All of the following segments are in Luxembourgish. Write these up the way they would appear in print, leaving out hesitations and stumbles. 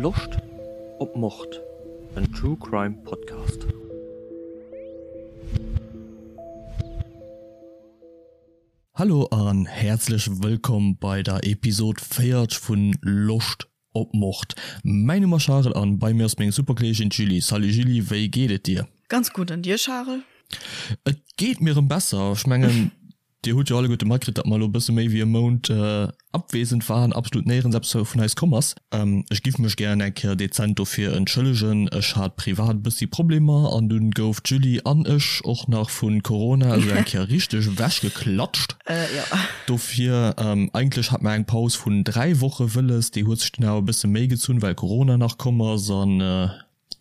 Loscht op Mord? En True Crime Podcast. Hallo an häerzlech wëllkomm bei der Episode 40 vun Loscht op Mord. Mäin Numm ass Charel an bei mir ass meng super Kolleegin d'Julie. Salut Julie, wéi geet et dir? Ganz gutt, an dir Charel? Et geet mir erëm besser. Ech mengen Dir hutt jo alleguerte matkritt, datt mer elo e bësse méi wéi e Mount abwesend waren, absolut néierens eppes vun eis komm ass. Ech giff mech gären eng Kéier dezent dofir entschëllegen. Ech hat privat e bëssi Problemer an dunn gouf d'Julie an ech och nach vu Corona esou eng Kéier richteg ewechgeklatscht. Dofir, eigentlech hat mer eng Paus vun 3 Woche wëlles, déi huet sech dunn awer e bësse méi gezunn, well Corona nach komm ass an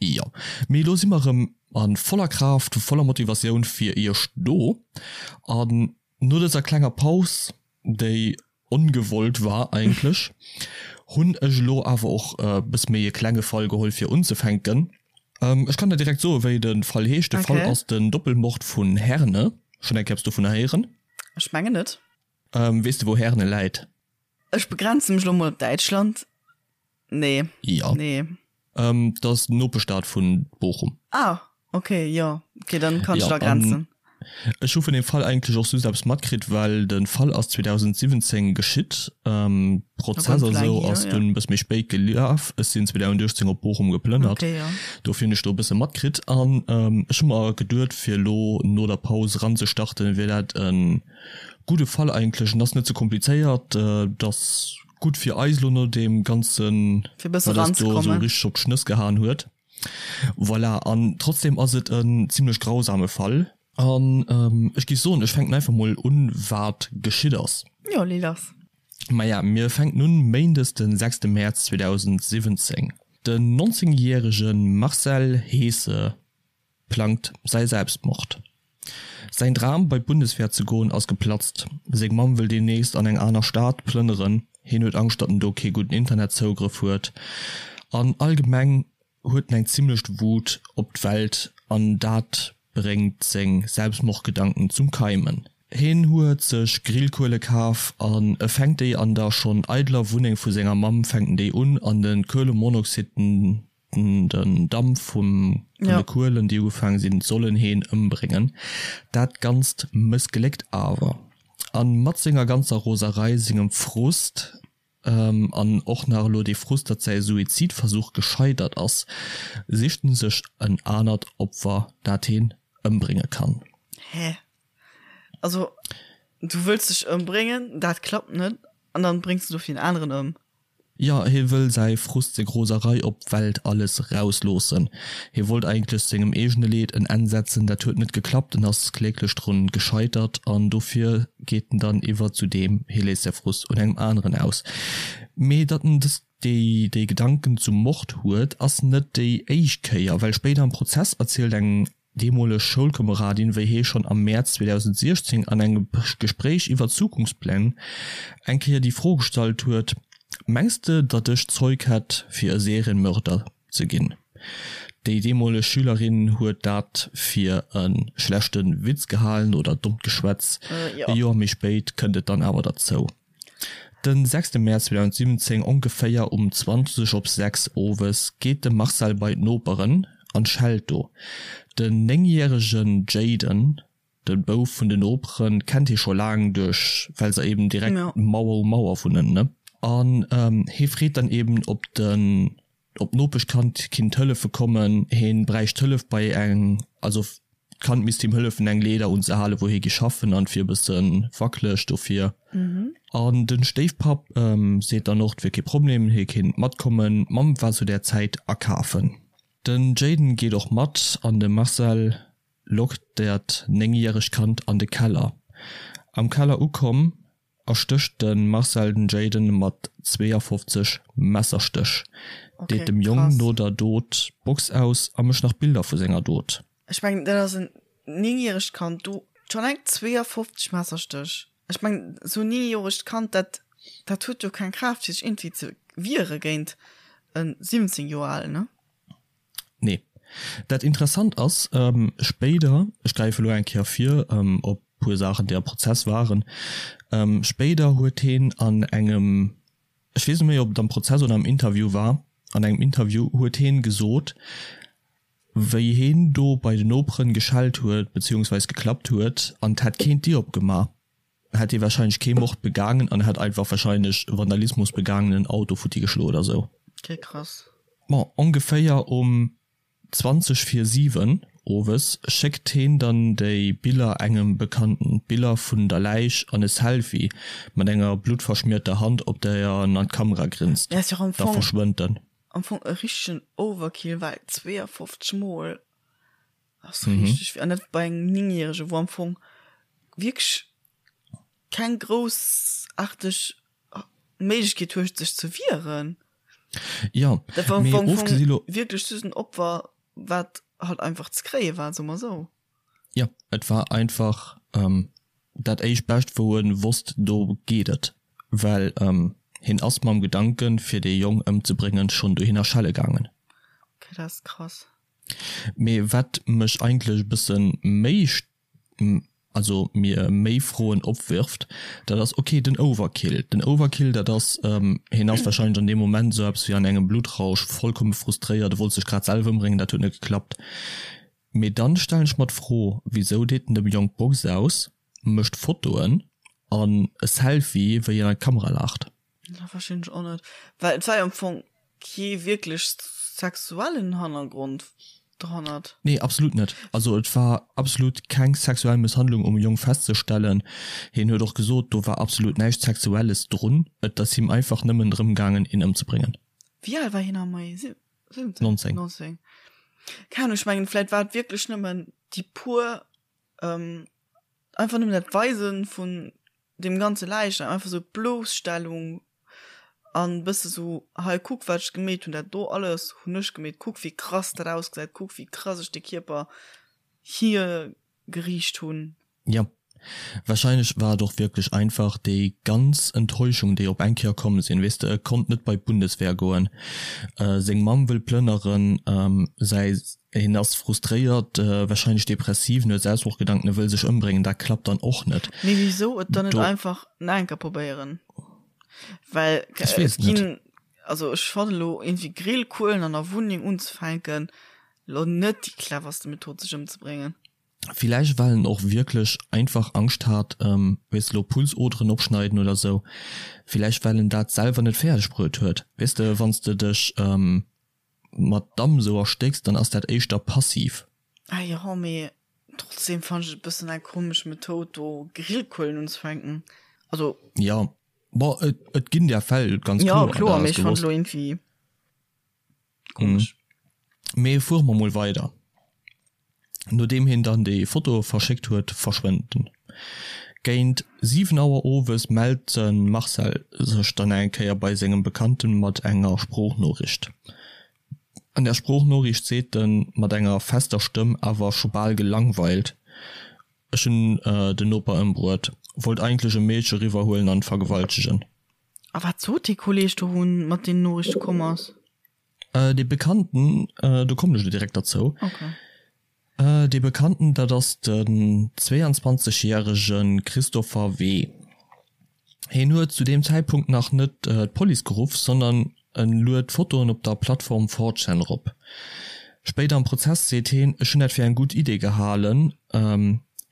Jo, mee elo si mer erëm a voller Kraaft, voller Motivatioun fir iech do. An no dëser klenger Paus, déi ongewollt war eigentlech, hunn ech elo awer och e bësse méi e klenge Fall geholl fir unzefänken. Ech kann der direkt soen, wéi de Fall heescht. De Fall ass den Doppelmord vun Herne. Schonn eng Kéier eppes dovunner héieren? Ech mengen net. Weess de wou Herne läit? Ech begrenze mech elo mol op Däitschland. Nee. Ja. Nee. Ähm, dat ass d'Nopeschstad vun Bochum. Ah, okay, jo. Okay, dann kann ech Ja, et agrenzen. an ech hu vun deem Fall eigentlech och just eppes matkritt, well de Fall ass 2017 geschitt. Ähm, Prozess Ganz a laang sou hier, ass ja. dunn e bësse méi spéit gelaf. Ech sinn 2018 op Bochum geplënnert. Okay, ja. Dofir hunn ech do e bësse matkritt. An ähm, ech hu mer geduet, fir elo no der Paus eranzestarten, wier dat e gudde Fall eigentlech. En ass net ze komplizéiert, et ass Gutt fir eis elo no deem ganzen, Fir e bësse wat eis do esou ranzekommen. richteg op d'Schnëss gehaen huet. Voilà, an trotzdem ass et en zimlech grausame Fall. An ech géif soen, ech fänken einfach mol un, wat geschitt ass. Jo, lee lass. Maja, mir fänken un méindes den sechste Mäerz 2017. Den 19 järege Marcel Heese plangt säi Selbstmord. Säin Dram bei d'Bundeswehr ze goen ass geplatzt. Seng Mamm wëll deemnächst an eng aner Stad plënneren, hien huet Angscht datt en do kee gudden Internetzougrëff huet an allgemeng huet en eng zimmlecht Wut op d'Welt an dat bréngt seng Selbstmordgedanken zum Keimen. Hien huet sech Grillkuele kaf an e fänkt déi an der schonn eideler Wunneng vu senger Mamm fänkt en déi un an de Kuelemonoxid den Den Damp vun de Kuelen, déi ugefaange sinn, sollen heen ëmbréngen. Dat Ganzt mëssgléckt awer. A mat senger ganzer Roserei, sengem Frust an och nach elo dee Frust, datt säi Suizidversuch gescheitert ass, sicht en sech en anert Opfer, dat heen ëmbrénge kann. Hä? Also, du wëlls dech ëmbréngen, dat klappt net, an dann bréngs de dofir en aneren ëm? Jo, hie wëll säi Frust, seng Roserei op d'Welt, alles rausloossen. Hie wollt eigentlech sengem eegene Leed en Enn setzen, dat huet net geklappt, en ass kläglech drun gescheitert an dofir geet en dann iwwer zu deem, hie léisst säi Frust un engem aneren aus. Mee datt en dës déi déi Gedanken zum Mord huet, ass net déi éischt Kéier, well spéider am Prozess erzielt eng deemoleg Schoulkomeradin, wéi hee schonn am Mäerz 2016 an engem Gespréich iwwer Zukunftspläng eng Kéier déi Fro gestallt huet, Mengs de, datt ech d'Zeug hätt, fir e Serienmörder ze ginn? Déi deemoleg Schülerin huet dat fir e schlechte Witz gehalen oder dommt Geschwätz. E Joer méi spéit kënnt et dann awer derzou. Den sechste Mäerz 2017, ongeféier um 20 op 6 owes, geet de Marcel bei d'Noperen an schellt do. Den néngjäregen Jayden, de Bouf vun de Noperen, kennt hie scho laang duerch well se eben direkt Mauer u Mauer wunnen, ne? An hie freet dann eben op den op d'Nopeschkand kinnt hëllefe kommen, heen bräicht Hëllef bei eng, also d'Kand misst him hëllefen eng Leeder unzehalen wou hie gi schaffen an et wier e bësse wackeleg dofir. An den Stéifpapp seet dann och et wier kee Problem, hie kinnt matkommen, d'Mamm war zu där Zäit akafen. Den Jayden geet och mat an de Marcel lockt dat 9 järegt Kand an de Keller. Am Keller ukomm erstécht de Marcel den Jayden mat 52 Messerstéch, deet dem Jong no der Dot d'Box aus a mécht nach Bilder vu senger Dot. Ech mengen dat ass en 9 järegt Kand, do schonn eng 52 Messerstéch. Ech mengen esou en 9 joregt Kand, dat dat huet jo keng Kraaft fir sech iergendwéi ze wiere géint en 17 Joer alen, ne? Nee. Dat interessant ass, spéider, ech gräife elo eng Kéier vir op e puer Saachen, déi am Prozess waren, spéider huet heen an engem, ech weess net méi, ob et am Prozess oder am Interview war, An engem Interview huet heen gesot, wéi heen do bei de Noperen geschellt huet beziehungsweis geklappt huet an 't hätt keen d'Dier opgema, hätt hee wahrscheinlech kee Mord begaangen an hätt einfach wahrscheinlech Vandalismus begaangen, en Auto futti geschloen oder sou. Okay, krass. Bon, ongeféier um 20 vir 7 owes schéckt heen dann déi Biller engem Bekannten, d'Biller vun der Läich an e Selfie mat enger bluttverschmierter Hand op der en an d'Kamera grinst. Ja, ass jo am Da Fong, verschwënnt en. am Fong e richtegen Overkill, well 52 mol ass richteg vill, an dat bei engem 9 järege wou am Fong wierklech keng groussaarteg Méiglechkeet huet sech ze wieren. Jo, Dat war am mee Fong ofgesi lo. wierklech just en Opfer, wat halt einfach ze kréie war, soe mer esou. Jo, et war einfach dat éischt Bescht, wou e wosst, do geet et, well hien ass mam Gedanken, fir dee Jong ëmzebréngen, schonn dohinner schelle gaangen. Okay, dat ass krass. Mee wat mech eigentlech e bësse méi also mir méi Froen opwirft, dat ass, okay, den Overkill. Den Overkill, dat ass, hien ass wahrscheinlech an deem Moment esou eppes wéi an engem Bluttrausch, vollkomme frustréiert, e wollt sech grad selwer ëmbréngen, dat huet net geklappt. Mee dann stellen ech mer d'Fro, wisou deet en dem Jong d'Box aus, mécht Fotoen an e Selfie, wéi en an d'Kamera laacht? Dat verstinn ech och net, well et war jo am Fong kee wierklech sexuellen Hannergrond dohannert. Nee, absolut net. Also et war absolut keng sexuell Mësshandlung um Jong festzestellen. Hien huet och gesot, do war absolut näischt Sexuelles drun, et ass him einfach nëmmen drëm gaangen, een ëmzebréngen. Wéi al war hien am Mai? 17? 19. 19. Keng Ahnung, ech mengen, vläit war et wierklech nëmmen déi puer, einfach nëmmen dat Weisen vun deem ganze Läichnam, einfach sou d'Bloosstellung an bësse sou, hei kuck wat ech gemeet hunn, dat do alles hunn ech gemeet, kuck wéi krass dat ausgesäit, kuck wéi krass ech de Kierper hier geriicht hunn. Jo, wahrscheinlech war et och wierklech einfach déi ganz Enttäuschung déi op eng Kéier komm sinn, weess de, e konnt net bei d'Bundeswehr goen, seng Mamm wëll plënneren, säi Hien ass frustréiert, wahrscheinlech depressiv, en huet Selbstmordgedanken, e wëll sech ëmbréngen, dat klappt dann och net. Mee wisou et dann net einfach nach eng Kéier probéieren? Well Ech weess et net. ginn, also ech fannen elo iergendwéi Grillkuelen an der Wunneng unzefänken elo net déi cleverste Method sech ëmzebréngen. Villäicht well en och wierklech einfach Angscht hat, weess de, elo Pulsoderen opschneiden oder sou, villäicht well en dat selwer net fäerdeg bruet huet, weess de, wann s de dech mat Damm sou erstécks, dann ass dat éischter passiv. Ah jo, mee trotzdem fannen ech et e bëssen eng komesch Methoud do Grillkuelen unzefänken. Also. Jo, bon et et ginn där Fäll, ganz Jo kloer, kloer, dat mee ass ech fannen et gewosst. elo iergendwéi komesch. Mee fuere mer mol weider. Nodeem hien dann déi Fotoe verschéckt huet, verschwënnt en. Géint 7 Auer owes mellt de Marcel sech dann eng Kéier bei sengem Bekannten mat enger Sproochnoriicht. An der Sproochnoriicht seet en mat enger fester Stëmm, awer scho bal gelangweilt, Ech hunn den Noper ëmbruet, wollt eigentlech e Meedche eriwwerhuelen an vergewaltegen. A wat sot dee Kolleeg do, wou en mat deenen Noriichte komm ass? Dee Bekannten, do kommen ech elo direkt derzou. Okay. Dee Bekannten, dat ass den 22 järege Christopher W. Hien huet zu deem Zäitpunkt nach net d'Police geruff, sondern en luet Fotoen op der Plattform 4chan erop. Spéider am Prozess seet heen, Ech hunn dat fir eng gutt Idee gehalen.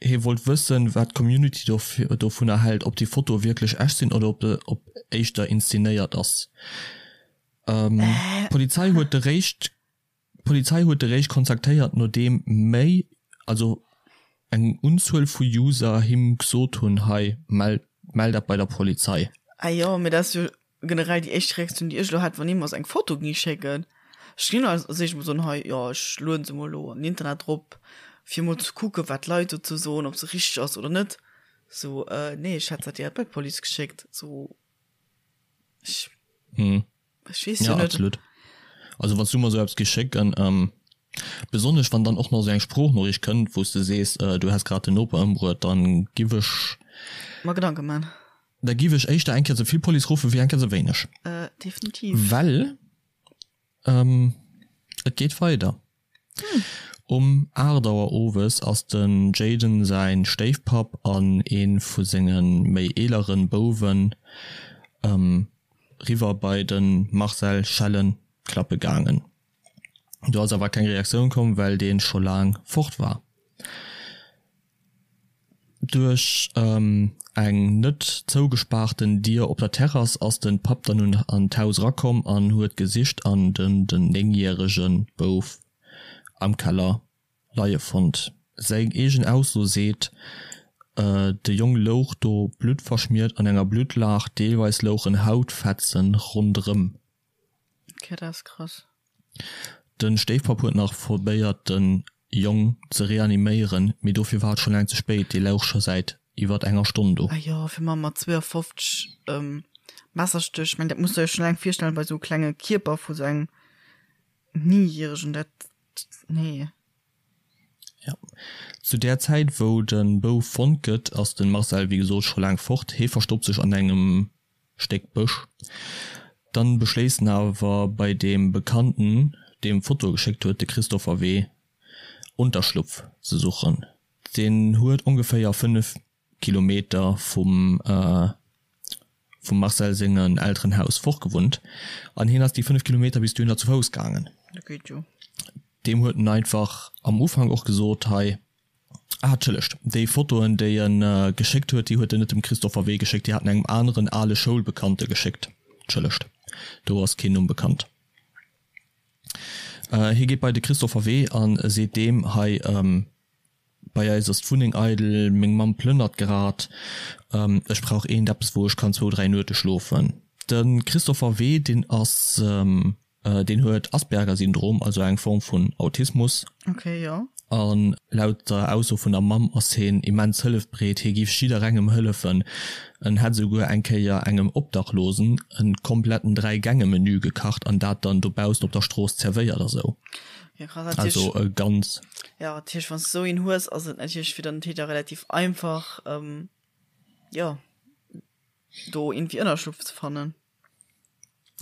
Hie wollt wëssen, wat d'Community dovunner hält, ob déi Fotoe wierklech echt sinn oder ob éischter inszenéiert ass. D'Polizei huet de Réischt D'Polizei huet de Réischt kontaktéiert nodeem méi, also eng Unzuel vu User him gsot hunn, hei mell mell dat bei der Polizei. Ah jo, mee dat ass jo generell déi éischt Reaktioun déi ech elo hätt, wann ee mer sou eng Foto géing schécken. Ech ginn als éischt mol soen, hei jo ech lueden se mol elo an den Internet drop fir mol ze kucken wat d'Leit dozou soen, ob se richteg ass oder net. Sou, nee ech hätt dat direkt bei d'Police geschéckt, sou. Ech, hm. ech weess ja, jo net. Absolut. Also wann du mer sou eppes géif schécken, ähm, besonnesch wann dann och nach sou eng Sproochnoriicht kënnt, wou s de sees, äh, du häss grad den Noper ëmbruet, dann giff ech. Mer Gedanke man. Da giff ech éischter eng Kéier ze vill Police ruffen, wéi eng Kéier ze wéineg. Äh, definitiv. Well, ähm, et geet weider. Um 8 Auer owes ass den Jayden säin Stéifpapp an een vu senge méi eeleren Bouwen riwwer bei den Marcel schellen. klappe gaangen. Do ass awer keng Reaktioun komm, well dee scho laang fort war. Duerch eng net zougespaarten Dier op der Terrass ass de Papp dann un an d'Haus erakomm an huet gesicht an den den 9 järege Bouf am Keller leie fonnt. Seng eegen Ausso seet, de Jong louch do bluttverschmiert an enger Bluttlaach, deelweis louchen Hautfetzen ronderëm. Okay, dat ass krass. Den Stéifpapp huet nach probéiert den Jong ze reaniméieren, mee dofir war et scho laang ze spéit, dee louch scho säit iwwert enger Stonn do. Ah jo, fir ma mat 52 Messerstéch, ech meng dat muss der jo schon laang virstellen bei sou klenge Kierper vu sou engem Néngjäregen, dat, nee. Jo. Zu där Zäit wou de Bouf fonnt gëtt, ass de Marcel wéi gesot scho laang fort. Hee verstoppt sech an engem Stéck Bësch. Dann beschléisst en awer bei deem Bekannten, deem d'Fotoe geschéckt huet, de Christopher W. Unterschlupf ze suchen. Deen huet ongeféier 5 Kilometer vum vum Marcel sengen Elterenhaus fort gewunnt an hien ass déi 5 Kilometer bis dohinner zu Fouss gaangen. Dat geet jo. Deem huet en einfach am Ufank och gesot, hei, Ah, entschëllegt, déi Fotoen, déi en geschéckt huet, déi huet en net dem Christopher W. geschéckt, déi hat en engem aneren ale Schoulbekannte geschéckt. Entschëllegt, do ass keen Numm bekannt. Hie geet bei de Christopher W. a seet deem, Hei, bei eis ass d'Wunneng eidel, meng Mamm plënnert grad, ech brauch eent eppes, wou ech kann zwou, dräi Nuete schlofen. De Christopher W., deen ass Deen huet Asperger-Syndrom, also eng Form vun Autismus. Okay, jo. An laut der Ausso vun der Mamm ass heen immens hëllefbereet, hie giff jidderengem hëllefen. En hätt esouguer eng Kéier engem Obdachlosen en kompletten Dräi-Gänge-Menü gekacht an dat dann dobaussen op der Strooss zerwéiert a sou. Ja, krass. Natierlech. Also e ganz. Ja, natierlech, wann s de sou een hues, ass et natierlech fir den Täter relativ einfach, jo, do iergendwéi Ënnerschlupf ze fannen.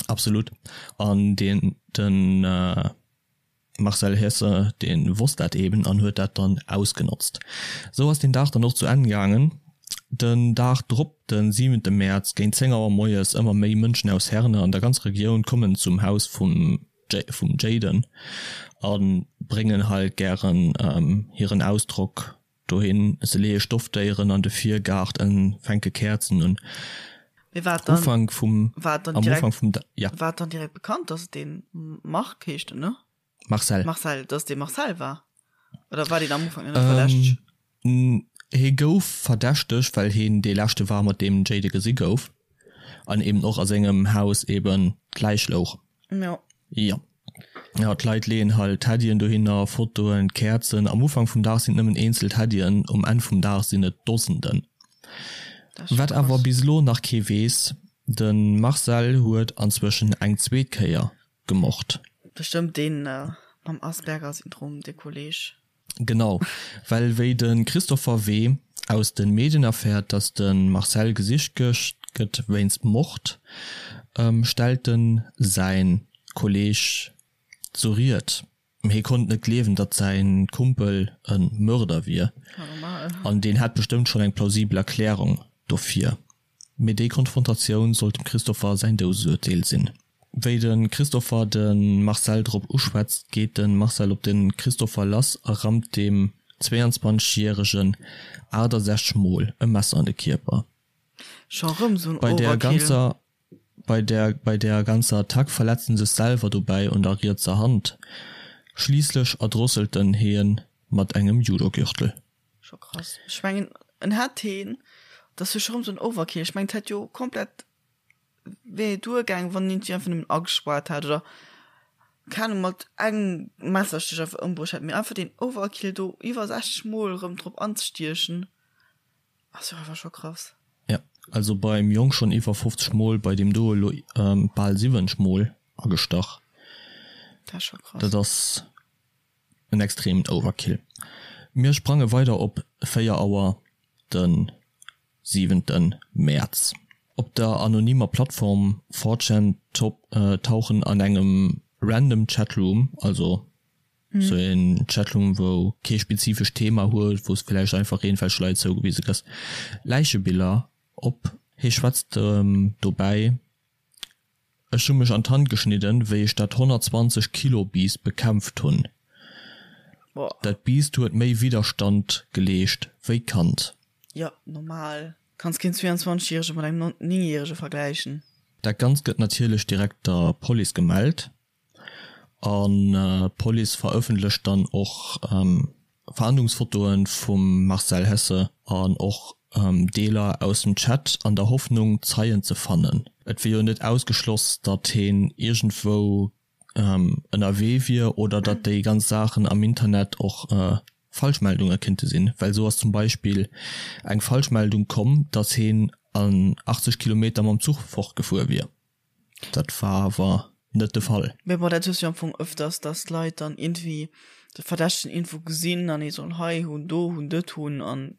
Absolut. An deen, den Marcel Hesse, dee wosst dat eben an huet dat dann ausgenotzt. Esou ass deen Dag dann och zu Enn gaangen. Den Dag drop, de siwente Mäerz, géint 10 Auer moies, ëmmer méi Mënschen aus Herne an der ganzer Regioun kommen zum Haus vum vum Jayden a bréngen halt gären hiren Ausdrock Dohin, se leeë Stoffdéieren an de Virgaart en fänke Käerzen un. Mee war et dann, Ufank vum, war et dann am direkt, Ufank vum, ja. war et dann direkt bekannt, dass et dee Marc heescht en, ne? Marcel. Marcel, dass et dee Marcel war? Oder war deen am Ufank nach net verdächteg? Hie gouf verdächtegt, well hien dee leschte war, mat deem den Jayden gesi gouf an eben och a sengem Haus eben d'Läich louch. Jo. Jo. Jo, d'Leit leeën halt Teddyen dohinner, Fotoen, Käerzen. Am Ufank vum Dag sinn et nëmmen eenzel Teddyen, um Enn vum Dag sinn et Dosenden. Wat awer bis elo nach kee weess, De Marcel huet anzwëschen eng zweet Kéier gemort. Bestëmmt deen mam Asperger-Syndrom, dee Kolleg. Genau, well wéi de Christopher W. aus de Medien erfäert, datt de Marcel gesicht gëtt wéinst Mord, stellt en säi Kolleeg zur Ried. Hie konnt net gleewen, datt säi Kumpel e Mörder wier, an deen hätt bestëmmt schonn eng plausibel Erklärung dofir. Mee déi Konfrontatioun sollt dem Christopher säin Doudesurteel sinn. Wéi de Christopher de Marcel drop uschwätzt, geet de Marcel op de Christopher lass a rammt deem 22 järegen 68 mol e Messer an de Kierper. Scho rëm sou en Bei der Overkill. ganzer bei der bei der ganzer Attack verletzt en sech selwer dobäi un der rietser Hand. Schliisslech erdrosselt en hien mat engem Judogürtel. Scho krass. Ech mengen en hätt heen, dat ass jo scho rëm sou en Overkill, ech mengen et hätt jo komplett wär jo duergaang wann een si einfach nëmmen agespaart hätt oder keng Ahnung mat engem Messerstich einfach ëmbruecht hätt, mee einfach deen Overkill do iwwer 60 mol rëm drop anzestiechen ass jo einfach scho krass. Jo, also beim Jong schonn iwwer 50 mol, bei deem do elo bal 70 mol agestach. Dat ass scho krass. Dat ass En extremen Overkill. Mir sprange weider op 4 Auer de siwente Mäerz. Op der anonymer Plattform 4chan tauchen an engem random Chatroom, also sou een Chatroom wou kee spezifescht Thema huet, wou s villäicht einfach iergendwelch Leit zougewise kriss, Läichebiller op. Hie schwätzt dobäi. Ech hu mech an d'Hand geschnidden, wéi ech dat 120 Kilo Biest bekämpft hunn. Dat Biest huet méi Widderstand geleescht wéi d'Kand. Jo, normal. Kanns keen 22 järege mat engem 9 järege vergläichen. Dat Ganzt gëtt natierlech direkt der Police gemellt an d'Police verëffentlecht dann och Fahndungsfotoe vum Marcel Hesse an och Deeler aus dem Chat an der Hoffnung Zeien ze fannen. Et wier jo net ausgeschloss, datt heen iergendwou ënnerwee wier oder datt déi ganz Saachen am Internet och Falschmeldunge kinnte sinn, well esou ass zum Beispill eng Falschmeldung komm, datt heen an 80 Kilometer mam Zuch fortgefuer wier. Dat war awer net de Fall. Mee bon, dat hues du jo am Fong ëfters, datt d'Leit dann iergendwéi de Verdächtegen iergendwou gesinn an ee soll hei hunn, do hunn, dët hunn an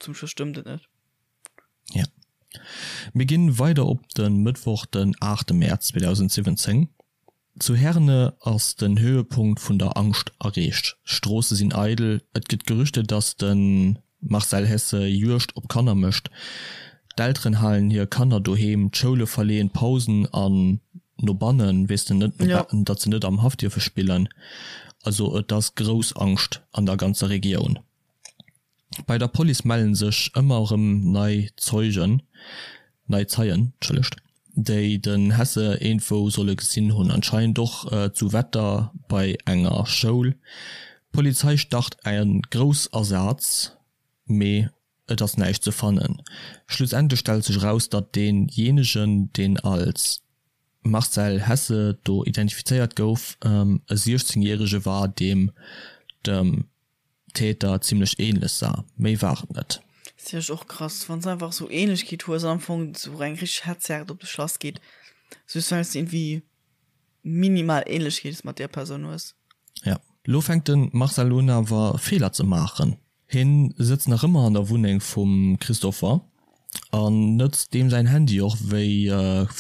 zum Schluss stëmmt et net. Ja. Mir ginn weider op de Mëttwoch den 8 Mäerz 2017. Zu Herne ass den Höhepunkt vun der Angscht erreecht. D'Stroosse sinn eidel, et gëtt Gerüchte datt de Marcel Hesse Juegd op Kanner mécht. D'Elteren halen hir Kanner doheem, d'Schoule verleeën d'Pausen an no bannen, weess de net, datt se net am Haff dierfe spillen. Also et ass grouss Angscht an der ganzer Regioun. Bei der Police mellen sech ëmmer erëm nei Zeugen, nei Zeien, entschëllegt, déi den Hesse iergendwou solle gesinn hunn, anscheinend och zu Wetter bei enger Schoul. D'Polizei start e Groussasaz, mee et ass näischt ze fannen. Schlussendlech stellt sech eraus, datt dee jenegen, deen als Marcel Hesse do identifizéiert gouf, e 16 järege war, deem dem Täter zimlech ähnlech sah, méi war et net. Ass jo och krass wanns einfach sou Ähnlechkeet hues an am Fong sou eng richteg Hetzjagd op dech lass geet just wells de iergendwéi minimal Ähnlechkeet mat där Persoun hues. Ja, lo fänkt de Marcel un awer Feeler ze maachen. Hien sëtzt nach ëmmer an der Wunneng vum Christopher an nëtzt deem säin Handy och wéi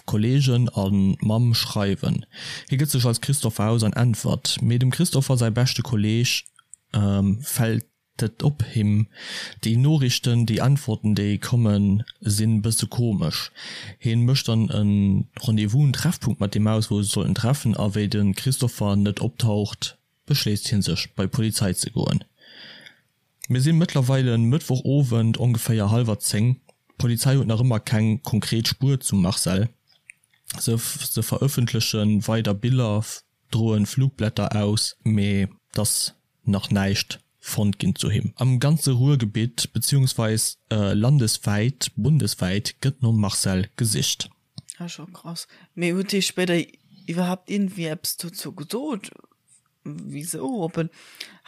Kollegen a Mamm schreiwen. Hie gëtt sech als Christopher aus an äntwert, mee dem Christopher säi beschte Kolleeg fält et op him, déi Noriichten, déi Äntwerten déi kommen sinn bësse komesch. Hien mécht dann e Rendez-vous, en Treffpunkt mat deem aus wou se sollten treffen a wéi de Christopher net optaucht beschléisst hien sech bei d'Polizei ze goen. Mir sinn mëttlerweile Mëttwoch Owend ongeféier hallwer 10. D'Polizei huet nach ëmmer keng konkret Spuer zum Marcel. Se se verëffentleche weider Biller, droen Flugblätter aus, mee t'ass nach näischt fonnt ginn zu him. Am ganze Ruhrgebitt beziehungsweis landeswäit, bundeswäit gëtt nom Marcel gesicht. Ah scho krass. Mee huet hie spéider iwwerhaapt iergendwéi eppes dozou gesot, wisou? Ob en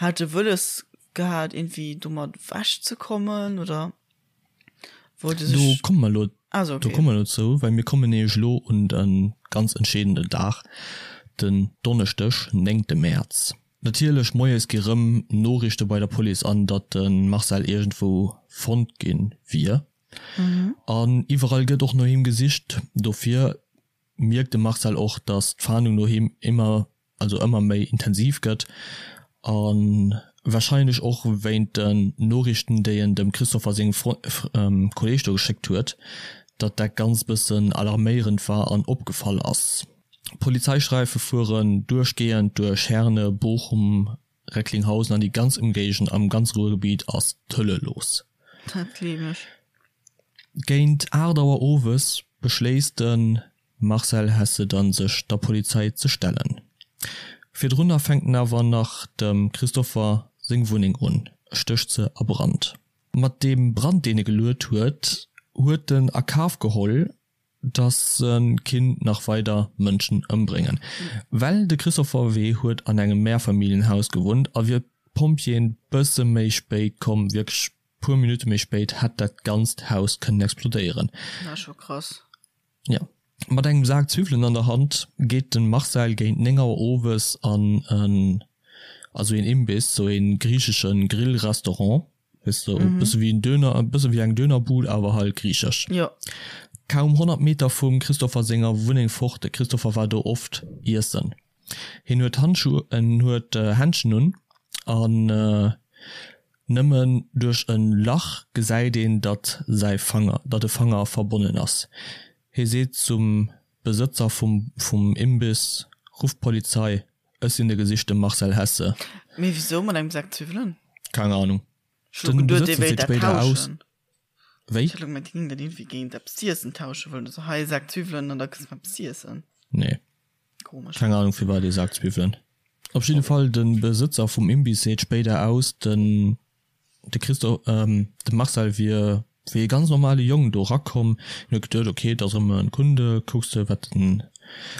hat e wëlles gehat iergendwéi domat ewech ze kommen oder wollt e sech. Do komme mer elo, ah sou, okay. Do komme mer elo zou, well mir kommen nämlech elo un de ganz entscheedenden Dag, den Donneschdeg, néngte Mäerz. Natierlech moies gi rëm Noriichte bei der Police an, datt de Marcel iergendwou fonnt gi wier. An iwwerall gëtt och no him gesicht. Dofir mierkt de Marcel och, datt d'Fahndung no him ëmmer, also ëmmer méi intensiv gëtt. A warscheinlech och wéint den Noriichten, déi en dem Christopher sengem Kolleeg do geschéckt huet, datt dat Ganzt bëssen alarméierend war an opgefall ass. Polizeisträife fueren duerchgehend duerch Herne, Bochum, Recklinghausen an déi ganz Ëmgéigend am ganze Ruhrgebiet ass d'Hölle los. Dat gleef ech. Géint 8 Auer owes beschléisst de Marcel Hesse dann sech der Polizei ze stellen. Virdrunner fänkt en awer nach dem Christopher seng Wunneng un, stécht se a Brand. Mat deem Brand deen e geluet huet, huet en a Kaf geholl dass se kinnt nach weider Mënschen ëmbréngen. Well de Christopher W. huet an engem Mehrfamilienhaus gewunnt a wier d'Pompjeeën bësse méi spéit komm, wierklech puer Minutte méi spéit, hätt dat ganzt Haus kënnen explodéieren. Dat ass scho krass. Jo. Mat engem Sak Zwiwwelen an der Hand geet de Marcel géint 9 Auer owes an en, also een Imbiss, sou ee griichesche Grillrestaurant. Weess de, e bësse wéi en Döner, e bësse wéi eng Dönerbud, awer halt griichesch. Jo. Kaum 100 Meter vum Christopher senger Wunneng fort, de Christopher war do oft iessen. Hien huet Handschu, en huet Händschen un an nëmmen duerch e Lach gesäit een, datt säi Fanger, datt e Fanger verbonnen ass. Hie seet zum. Besëtzer vum vum Imbiss, Rufft d'Polizei, ech sinn de gesichte Marcel Hesse. Mee wisou mat engem Sak Zwiwwelen? Keng Ahnung. Ech hu Den geduet, dee Besëtzer wéilt seet dat spéider aus. tauschen. Wéi? Ech hat elo gemengt, dee géing dat iergendwéi géint eppes z'iessen tausche wëllen. Also hei e Sak Zwiwwelen an da kriss de eppes z'iessen. Nee. Komesch. Keng Ahnung firwat ee Sak Zwiwwelen. Op jidde Fall, de Besëtzer vum Imbiss seet spéider aus, den de Christo, de Marcel wier wéi e ganz normale Jong do erakomm. Hien huet geduet, ok, et ass erëm e Kunde, kucks de wat den.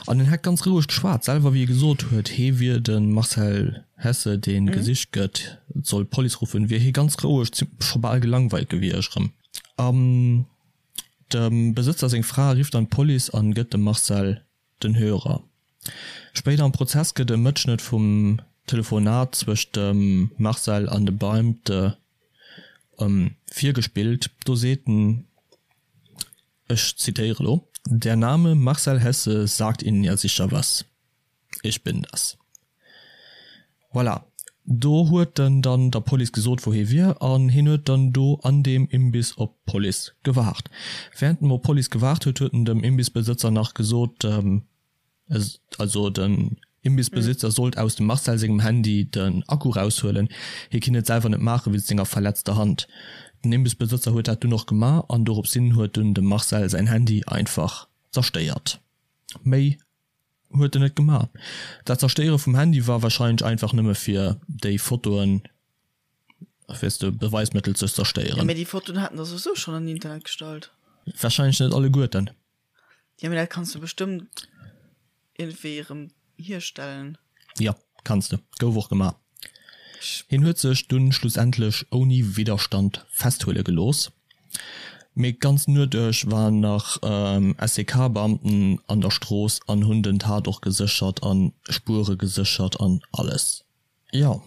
An en hätt ganz roueg geschwat, selwer wéi e gesot huet, hee wier de Marcel Hesse, dee gesicht gëtt, et soll d'Police ruffen, wier hie ganz roueg, scho bal gelangweilt gewiescht erëm. An dem Besëtzer seng Fra rifft dann d'Police an gëtt dem Marcel den Hörer. Spéider am Prozess gëtt e Mëtschnëtt vum Telefonat zwëscht dem Marcel an de Beamte virgespillt. Do seet en, ech zitéiere lo, Der Name Marcel Hesse sagt Ihnen ja sicher was. Ich bin das. Voilà. Do huet en dann der Police gesot, wou hie wier, an hien huet dann do an deem Imbiss op d'Police gewaart. Während en op d'Police gewaart huet, huet en dem Imbissbesëtzer nach gesot, also den Imbissbesitzer sollt aus dem Marcel sengem Handy den Akku raushuelen, hie kinnt et selwer net maache wéinst senger verletzter Hand. Den Imbissbesëtzer huet dat dunn och gemaach an doropshin huet dunn dem Marcel säin Handy einfach zerstéiert. Méi Huet en net gemaach. Dat Zerstéiere vum Handy war wahrscheinlech einfach nëmme fir déi Fotoen, weess de, Beweismëttel ze Ja, zerstéieren. mee déi Fotoen haten der souwisou schonn an den Internet gestallt. Wahrscheinlech net alleguerten. Ja, mee dat kanns du bestëmmt iergendwéi erëm hierstellen. Jo, kanns de. Gouf och gemaach. Hien huet sech dunn schlussendlech ouni Widderstand festhuele gelooss, mee d'ganz Nuet duerch waren nach SEK-Beamten an der Strooss an hunn den Tatort geséchert an Spuere geséchert an alles. Jo,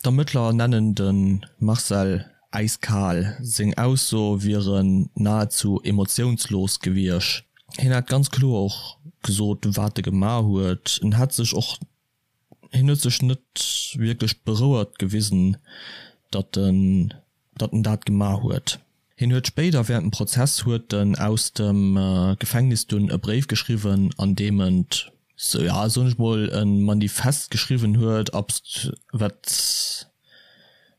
d'Ermëttler nennen de Marcel äiskal, seng Aussoe wieren nahezu emotiounslos gewiescht. Hien hätt ganz kloer och gesot, wat e gemaach huet. En hätt sech och Hien huet sech net wierklech berouert gewisen, datt en datt en dat gemaach huet. Hien huet spéider während dem Prozess huet en aus dem Gefängnis dunn e Bréif geschriwwen, an deem en, sou ja soen ech mol, e Manifest geschriwwen huet, abst wat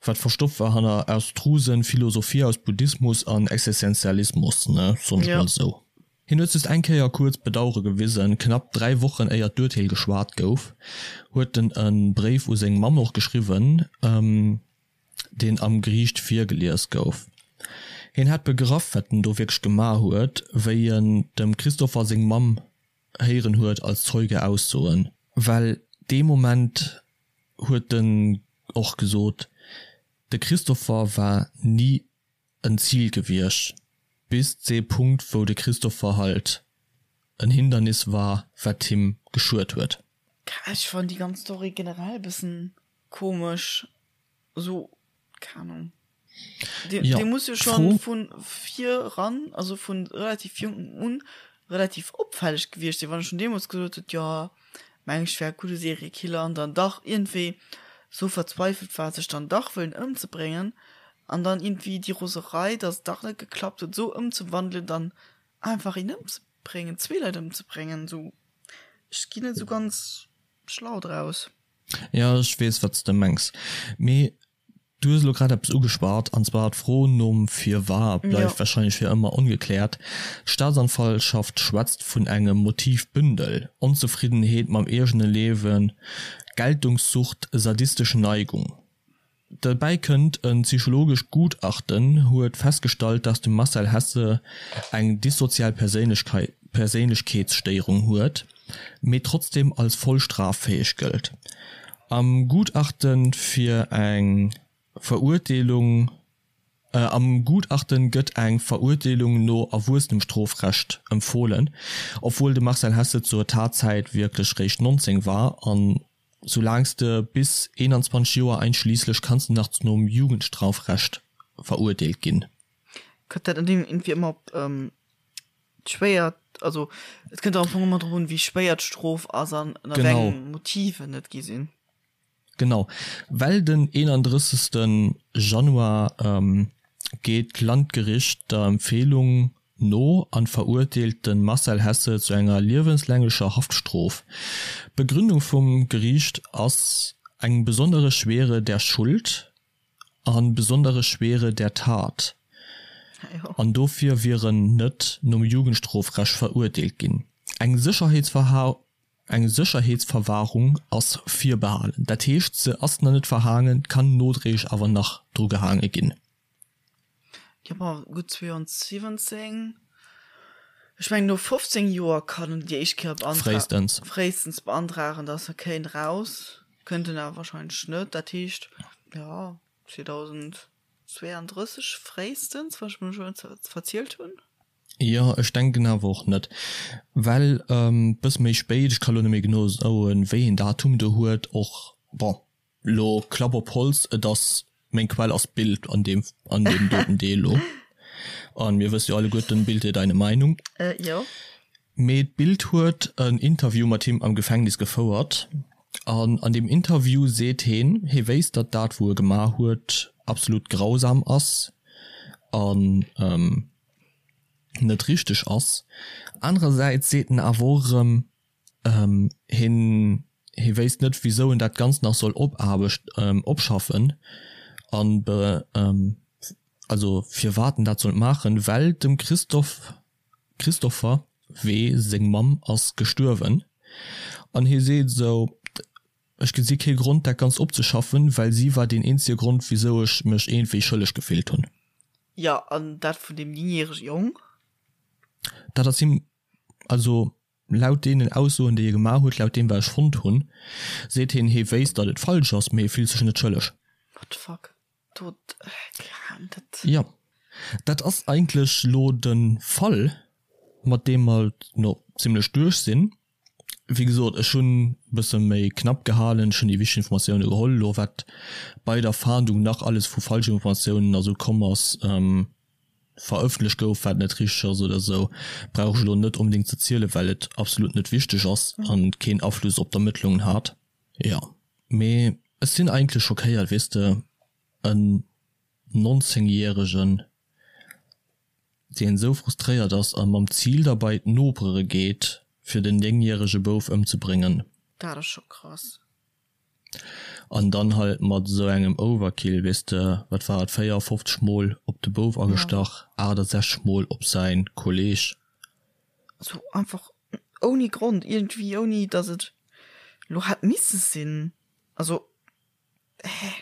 wat verstoppt war hanner abstrusen Philosophie aus Buddhismus an Existenzialismus, ne, soen ech mol esou. Hien huet just eng Kéier kuerz Bedauere gewisen, knapp 3 Wochen éier d'Urteel geschwat gouf, huet en e Bréif u seng Mamm och geschriwwen, deen am Geriicht virgelies gouf. Hien hätt begraff, wat en do wierklech gemaach huet, wéi en dem Christopher seng Mamm héieren huet als Zeuge aussoen. Well dee Moment huet en och gesot, de Christopher war ni en Zil gewiescht, bis dee Punkt wou de Christopher halt en Hindernis war wat him geschuet huet. Ech fannen déi ganz Story generell bessen komesch, sou keng Ahnung. Dee Jo, dee muss jo schon d'Fro. vun vir ran, also vun relativ jonkem un relativ opfälleg gewiescht sinn, wann e schon deemols gesot huet, jo meng ech wär e gudde Seriekiller an dann dach iergendwéi sou verzweifelt war sech dann dach wëllen ëmzebréngen an dann iergendwéi déi Roserei, dass et dach net geklappt huet, sou ëmzewandelen, dann einfach een ëmzebréngen, zwee Leit ëmzebréngen, sou ech ginn net sou ganz schlau draus. Jo, ech weess wat s de mengs, mee Du hues elo grad eppes ugeschwat, an zwar d'Fro nom Firwat bleift warscheinlech fir ëmmer ongekläert. D'Staatsanwaltschaft schwätzt vun engem Motivbündel, Onzefriddenheet mam eegene Liewen, Geltungssucht, sadistesch Neigung. Derbäi kënnt, e psychologescht Gutachten huet festgestallt, dass de Marcel Hesse eng dissozial Perséinlechkeetsstéierung huet, mee trotzdeem als voll straffäeg gëllt. Am Gutachten fir eng Verurteelung Am Gutachten gëtt eng Verurteelung no Erwuessenemstrofrecht empfohlen, obwuel de Marcel Hesse zur Tatzäit wierklech réischt 19 war an soulaang s de bis 21 Joer einschliisslech kanns de nach nom Jugendstrafrecht verurteelt ginn. Kënnt dat net iergendwéi ëmmer op Schwéier, also et kënnt am Fong ëmmer drop un, wéi schwéier d'Strof ass an ënner wéi engem Motiven et gi sinn. Genau, well den 31. Januar geet d'Landgericht der Empfehlung. no an verurteelt de Marcel Hesse zu enger liewenslänglecher Haftstrof. D'Begründung vum Geriicht ass eng besondere Schwere der Schuld an besondere Schwere der Tat an dofir wier en net nom Jugendstrofrecht verurteelt ginn. Eng Eng Sécherheetsverwahrung ass virbehalen, dat heescht se ass nach net verhaangen, kann nodréiglech awer nach dru gehaange ginn. Jo, bon, gutt 72, ech mengen no 15 Joer kann en déi éischt Kéier beantra Fréistens. fréistens beantragen, datt e kéint eraus. Kënnt en awer wahrscheinlech net. Dat heescht, jo, 2032 fréistens, wann ech mech elo net verzielt hunn. Jo, ech denken awer och net, well bësse méi spéit, ech ka lo net méi genau soen, wéi een Datum do huet, och, bon, lo Klapp op Holz, et ass, meng Quell ass d'Bild an deem, an deem doten Deel lo, an mir wësse jo alleguerten, Bild dir deine Meinung. Jo. Mee d'Bild huet en Interview mat him am Gefängnis gefouert, an an deem Interview seet heen, hee wéisst, datt dat wou e gemaach huet absolut grausam ass, an net richteg ass. Anerersäits seet en awer och erëm, hien hie wéisst net wisou en dat Ganzt nach soll opaarbecht opschaffen an be also firwat en dat sollt maachen, well dem Christophe Christopher W. Seng Mamm ass gestuerwen an hie seet esou, ech gesi kee Grond dat Ganzt opzeschaffen, well si war deen eenzege Grond wisou ech mech iergendwéi schëlleg gefillt hunn. Jo, an dat vun deem néngjärege Jong? Dat ass him, also laut deenen Aussoen, déi e gemaach huet, laut deem wat ech fonnt hunn, seet hien, hie wéisst, datt et falsch ass, mee e fillt sech net schëlleg. What the fuck? Do, dat. Jo, dat ass eigentlech lo de Fall, mat deem mer no zimlech duerch sinn. Wéi gesot, ech hunn e bësse méi knapp gehalen, ech hunn déi wichteg Informatioune geholl. Elo wat bei der Fahndung nach alles vu Falschinformatiounen a sou komm ass, verëffentlecht gouf, wat net richteg ass oder sou, brauch ech elo net onbedéngt ze zielen, well et absolut net wichteg ass a keen Afluss op d'Ermëttlungen hat. Jo, mee ech sinn eigentlech schockéiert, weess de, en 19 järegen deen esou frustréiert ass a mam Zil da bei d'Nopere geet fir den 9 järege Bouf ëmzebréngen. Dat ass scho krass. An dann halt mat esou engem Overkill, weess de, wat war et, 54 mol op de Bouf agestach, 68 mol op säin Kolleg. Sou einfach ouni Grond iergendwéi, ouni dass et lo hätt misse sinn. Also, hä?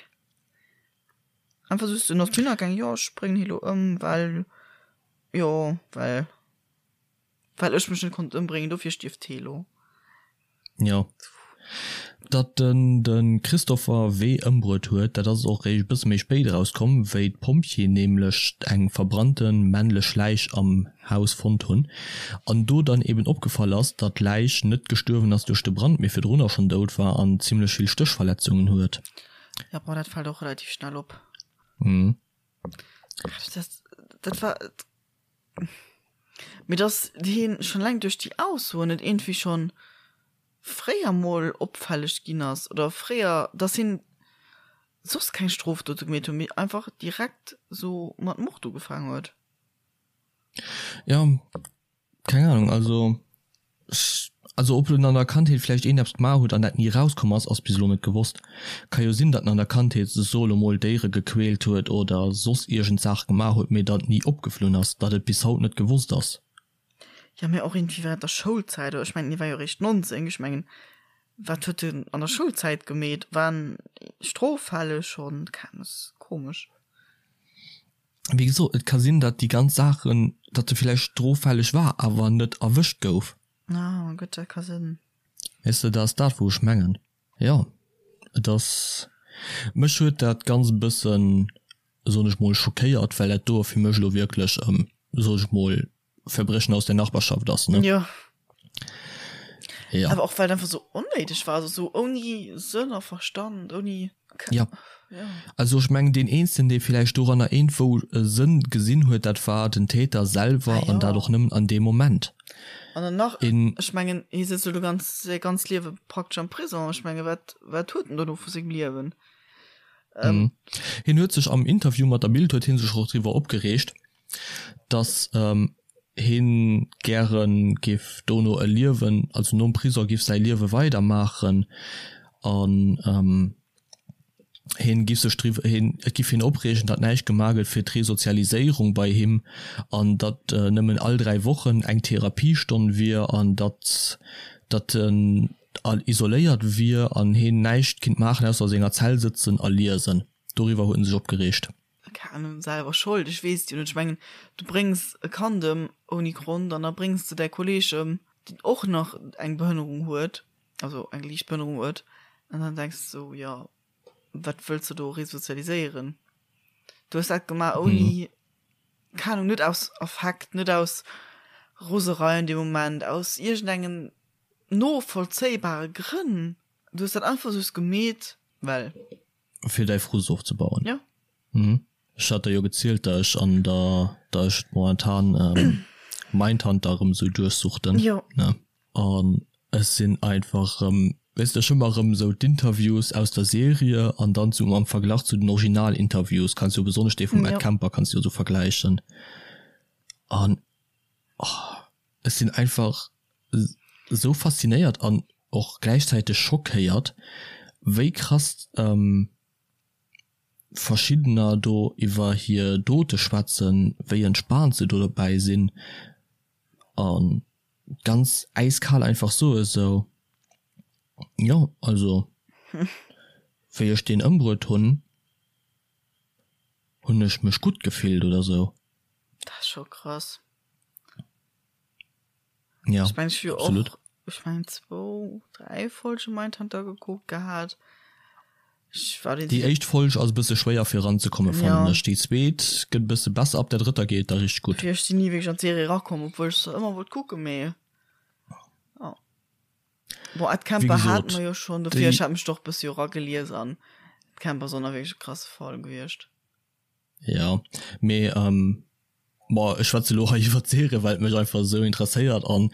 Einfach just en ass dohinner gaang, jo ech bréngen hie lo ëm, well jo well well ech mech net konnt ëmbréngen, dofir stierft hie lo. Jo. Datt en de Christopher W. ëmbruet huet, dat ass och réischt e bësse méi spéit erauskomm, wéi d'Pompjeeën nämlech eng verbrannte männlech Läich am Haus fonnt hunn an do dann eben opgefall ass, datt d'Läich net gestuerwen ass duerch de Brand, mee virdrunner schonn dout war an zimmlech vill Stéchverletzungen huet. Ja, boah, dat fällt och relativ schnell op. Mhm. Dat, dat war. Mee dass hien schon eleng duerch déi Aussoen net iergendwéi schon fréier mol opfälleg ginn ass oder fréier, dass hien soss keng Strofdote gemeet huet, mee einfach direkt sou mat Mord ugefaangen huet. Ja, Keng Ahnung, also ech, also ob en an der Kandheet vläicht een eppes gemaach huet an dat ni erauskomm ass, ass bis elo net gewosst. Ka jo sinn, datt en an der Kandheet, so elo mol, Déiere gequält huet oder soss iergend Saach gemaach huet, mee datt ni opgeflunn ass, datt et bis haut net gewosst ass. Jo, mee och iergendwéi während der Schoulzäit, oder ech mengen, hie war jo eréischt 19, ech mengen, wat huet en an der Schoulzäit gemeet? War en stroffälleg schonn? Keng, ass komesch. Wéi gesot, et ka sinn, datt déi ganz Saachen, datt e villäicht stroffälleg war, awer net erwëscht gouf. Ah, gutt, dat ka sinn. Weess de, dat ass dat, wou ech mengen. Jo, et ass, mech huet dat Ganzt e bëssen, soen ech mol, schockéiert, well dat do fir mech elo wierklech, soen ech mol, Verbrechen aus der Nachbarschaft ass, ne? Jo. Ja. Awer och well et einfach sou onnéideg war, also sou ouni Sënn a Verstand, ouni. Ja. Ja. Also ech mengen deen eenzegen dee villäicht doranner iergendwou e Sënn gesinn huet, dat war den Täter selwer ah, an dat och nëmmen an deem Moment. An dann nach, een, ech mengen hie sëtzt elo ganz säi ganzt Liewe praktesch am Prison, ech menge wat wat huet en dono vu sengem Liewen? Ähm. Mhm. Hien huet sech am Interview mat der Bild huet hie sech och driwwer opgereegt, dass. Heen gären giff dono e Liewen, also nom Prison giff säi Liewe weider maachen an heen giff sech driwwer, heen, et giff heen opreegen, datt näischt gemaach gëtt fir d'Resozialiséierung bei him an datt nëmmen all 3 Wochen eng Therapiestonn wier an datt datt en isoléiert wier an heen näischt kinnt maachen ausser a senger Zell sëtzen a liesen. Doriwwer huet en sech opgereegt. Keng Ahnung, selwer Schold, ech weess et jo net. Ech mengen, du bréngs e Kand ëm ouni Grond an da bréngs de däi Kolleeg ëm, deen och nach eng Behënnerung huet, also eng liicht Behënnerung huet, an dann denks de sou, jo, wat wëlls de do resozialiséieren? Du hues dat gemaach ouni, keng Ahnung, net aus Affekt, net aus Roserei an deem Moment, aus iergendengen novollzéibare Grënn. Du hues dat einfach just gemeet, well. Fir däi Frust ofzebauen. Jo. Mhm. Ech hat der jo gezielt, dat ech an der, dat ech momentan Mindhunter erëm esou duerchsuchten. Jo. Ne? An ech sinn einfach erëm, weess de, ech hu mer erëm esou d'Interviews aus der Serie an dann zu am Verglach zu den Originalinterviews, kanns jo besonnesch dee vum Ed Kemper kanns du jo esou vergläichen. An oh, ech sinn einfach esou faszinéiert an och gläichzäiteg schockéiert, wéi krass verschiddener do iwwer hir Dote schwätzen, wéi entspaant se do dobäi sinn a ganz äiskal einfach soe sou, jo also wéi ech deen ëmbruet hunn, hunn ech mech gutt gefillt oder sou. Dat ass scho krass. Ja, ech mein, ech hu jo absolut. och, ech mein, zwou, dräi Folge Mindhunter gekuckt gehat. Ech war Déi éischt Folg ass e bësse schwéier fir eranzekomme fannen Ja. ech. Déi zweet gëtt e bësse besser, ab der drëtter geet et da richteg gutt. Ech sinn ni wierklech an d'Serie erakomm, obwuel ech se ëmmer wollt kucken, mee ja. Bon, Ed Wéi Kemper hate gesot, mer jo schonn, dofir déi ech hat mech doch e bësse jo eragelies an Ed Kemper ass och nach wierklech e krasse Fall gewiescht. Ja, mee bon, ech schwätze lo hei iwwer d'Serie, well et mech einfach esou interesséiert an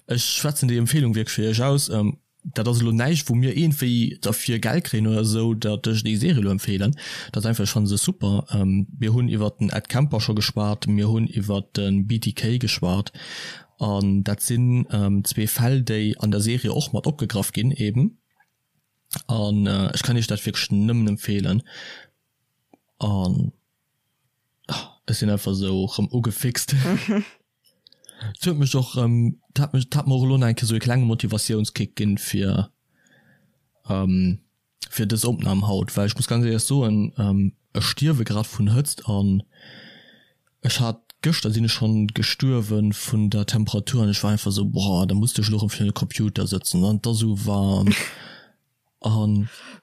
ech schwätzen déi Empfehlung wierklech fir iech aus. Dat ass elo näischt, wou mir iergendwéi derfir Geld kréien oder esou, datt ech déi Serie elo empfeelen. Dat ass einfach, ech fanne se super. Mir hunn iwwer den Ed Kemper scho geschwat, mir hunn iwwer de BTK geschwat an dat sinn zwee Fäll, déi an der Serie och mat opgegraff ginn eben an ech kann iech dat wierklech nëmmen empfeelen. An ech sinn einfach esou rëm ugefixt. Et huet mech och rëm, et hat mech, et hat mer och elo nach eng Kéier esou e klenge Motivatiounskick ginn fir fir dës Opnam haut, well ech muss ganz éierlech soen, ech stierwe grad vun Hëtzt an ech hat gëschter sinn ech schonn gestuerwe vun der Temperatur an ech war einfach esou, boah, da muss de ech elo rëm virun de Computer sëtzen an et ass esou waarm. An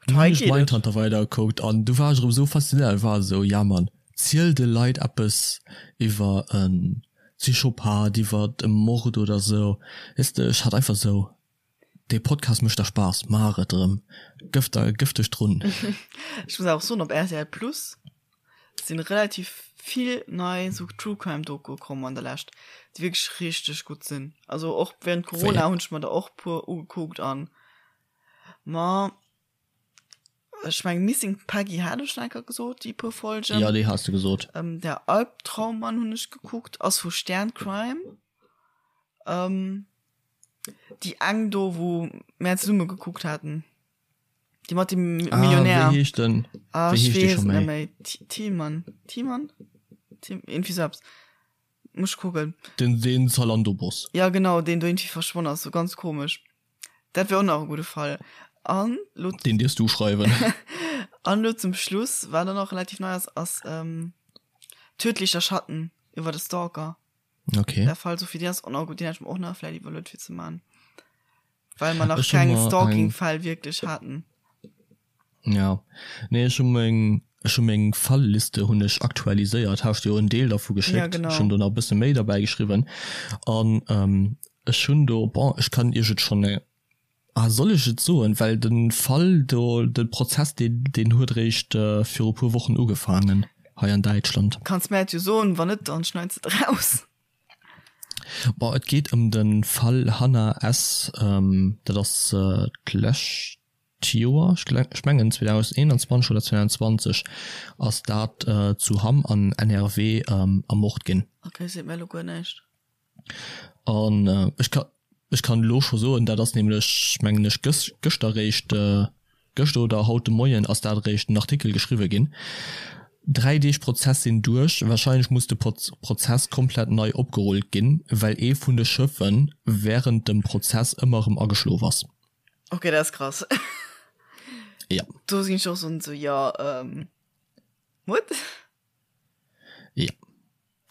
du hunn ech Mindhunter weidergekuckt an du war ech erëm esou faszinéiert, war esou, ja Mann, ziel de Leit eppes iwwer e Psychopath, iwwer e Mord oder esou, weess de, ech hat einfach esou, dee Podcast mécht der Spaass, maach et erëm, gëff der, gëff dech drun. Ech muss awer och soen, op rtl Plus sinn relativ vill nei esou True Crime Dokue komm an der Lescht, déi wierklech richteg gutt sinn. Also och während Corona hunn ech mer der och puer ugekuckt an Ma ech meng Missing Peggy hat ech schon enker gesot, déi puer Folgen. Ja, déi has de gesot. Ähm, der Albtraummann hunn ech gekuckt, ass vu Stern Crime. Ähm, déi eng do, wou mär zesumme gekuckt haten. Déi mat dem Ah, Millionär. wéi heescht den? Ah, Wéi ech heescht déi weess scho et net méi? méi. Thi- Thielmann. Thielmann? Thiem, irgendwie sou eppes. Muss ech kucken. Den, den Zalando-Boss. Ja, genau, deen do irgendwie verschwonn ass, sou ganz komesch. Dat wär och nach e gudde Fall. An lo. Deen dierfs du schreiwen. An lo zum Schluss, wat och nach relativ nei ass, ass ähm, Tödlicher Schatten iwwer de Stalker. Okay. Der Fall, Sophie, deen ass och nach gutt, deen hätt ech mer och nach vläicht iwwerluet fir ze man. Well mer nach Ech hu keng mer eng. Stalking-Fäll wierklech haten. Ja, nee, ech hu meng, ech hu meng Fallliste hunn ech aktualiséiert, hat ech dir jo en Deel dervu Ja, geschéckt. Ech genau. hunn do nach e bësse méi derbäi geschriwwen an ähm, ech hunn do, bon, ech kann iech et schonn, ah, soll ech et soen, well de Fall do, de Prozess, deen, deen huet eréischt viru e puer Wochen ugefaangen hei an Däitschland. Kanns mär et jo soen, wann net, dann schneits de et raus. Bon, et geet ëm de Fall Hannah S. Dat ass d'lescht D'Joer, ech mengen 2021 oder 2022, ass dat zu Hamm an NRW ermort ginn. Ok, seet mir elo guer näischt. An ech ka ech kann elo scho soen, dat ass nämlech mengen ech gës gëschter eréischt, gëschter oder haut de Moien ass dat eréischt den Artikel geschriwwe ginn. 3 Deeg Prozess sinn duerch, warscheinlech muss de Prozess komplett nei opgerullt ginn, well ee vun de Schëffe wärend dem Prozess ëmmer erëm ageschlof ass. Ok, dat ass krass. Ja. Do sinn ech och sou, jo, what? Ja,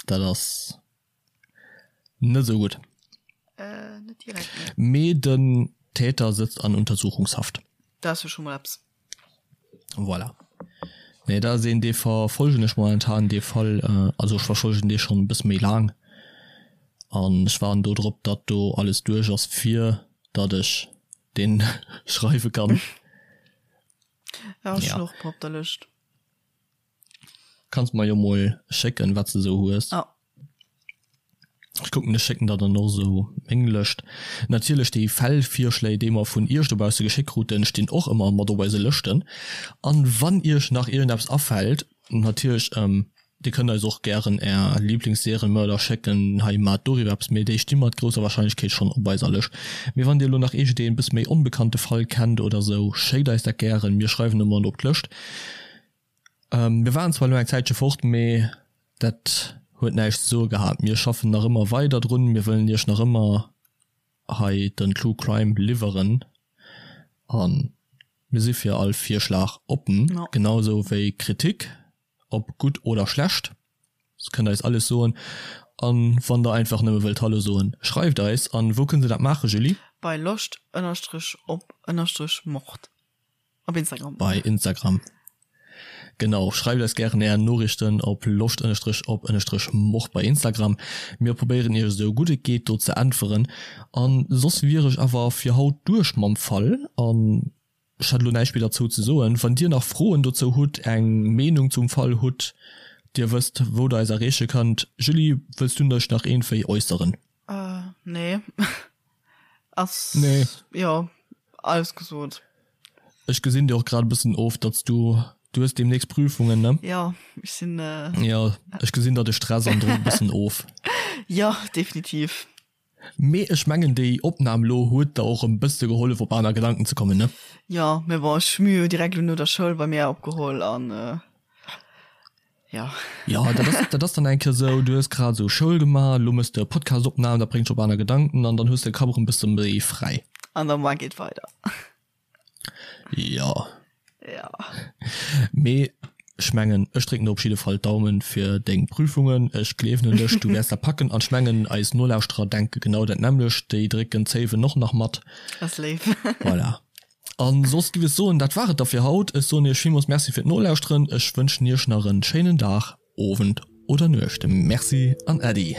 dat ass net esou gutt. Äh, net direkt, nee. Mee den Täter sëtzt an Untersuchungshaft. Dat ass jo scho mol eppes. Voilà. Nee, dat ass een, dee verfolgen ech momentan, dee Fall. Also ech verfolgen dee schonn e bësse méi laang. An ech waarden do drop, datt do alles duerch ass, fir datt ech deen schreiwe kann. Ja, ech hunn och e puer op der Lëscht. Kanns mer jo mol schécken wat s de sou hues. Ja. Ech kucken, ech schécken der dann och sou meng Lëscht. Natierlech déi Fällvirschléi déi mer vun iech dobausse geschéckt kruten stinn och ëmmer mat op eise Lëschten. An wann iech nach iergendeppes afält, natierlech dir kënnt eis och gären är Lieblingsserienmörder schécken, hei maacht doriwwer eppes, mee déi sti mat grousser Wahrscheinlechkeet schonn op eiser Lëscht. Mee wann dir elo nach iergendeen bësse méi onbekannte Fall kennt oder sou, schéckt eis dat gären, mir schreiwen e mat op d'Lëscht. Mir waren zwar elo eng Zäitche fort, mee dat huet näischt ze soe gehat. Mir schaffen nach ëmmer weider drun, mir wëllen iech nach ëmmer hei den True Crime liwweren a mir si fir all Virschlag oppen, genau esou wéi Kritik, ob gutt oder schlecht. Dir kënnt eis alles soen an wann der einfach nëmme wëllt Hallo soen, schreift eis. An wou kënnt se dat maachen, Julie? Bei loscht ënnerstrech op ënnerstrech mord. Op Instagram. Bei Instagram. Genau, schreift eis gären är Noriichten op loscht ënnerstrech op ënnerstrech mord bei Instagram. Mir probéieren iech esou gutt et geet do ze äntweren. An soss wier ech awer fir haut duerch mam Fall an ech hätt elo näischt méi derzou ze soen. Wann dir nach Froen dozou hutt, eng Meenung zum Fall hutt, dir wësst wou der eis erreeche kënnt. Julie, wëlls du dech nach iergendwéi äusseren? Nee. Ass nee. Jo, alles gesot. Ech gesinn dir och grad e bëssen of, datt s du, du hues deemnächst Prüfungen, ne? Jo, ech sinn. Jo, ech gesinn der de Stress an Drock e bëssen of. Jo, definitiv. Mee ech mengen déi Opnam lo huet der och e bësse gehollef op aner Gedanken ze kommen, ne? Jo, mee bon, ech hu mir jo direkt lo no der Schoul bei mir opgeholl an. Ja. Ja, dat ass, dat ass dann eng Kéier sou, du hues grad sou Schoul gemaach, lo mëss de e Podcast-Opnam, dat bréngt dech op aner Gedanken an dann hues de de Kapp erëm e bësse méi fräi. An der Moar geet weider. Ja. Ja. Mee ech mengen, ech drécken der op jidde Fall d'Daumen fir deng Prüfungen. Ech gleewen un dech, du wäers dat packen. An ech mengen, eis Nolauschterer denke genau dat nämmlecht, déi drécken d'Zéiwen och nach mat. Ass léif. Voilà. An soss giff ech soen, dat war et da fir haut. Ech soen iech villmools Merci fir d'Nolauschteren. Ech wënschen iech nach en schéinen Dag, Owend oder Nuecht. Merci an Äddi.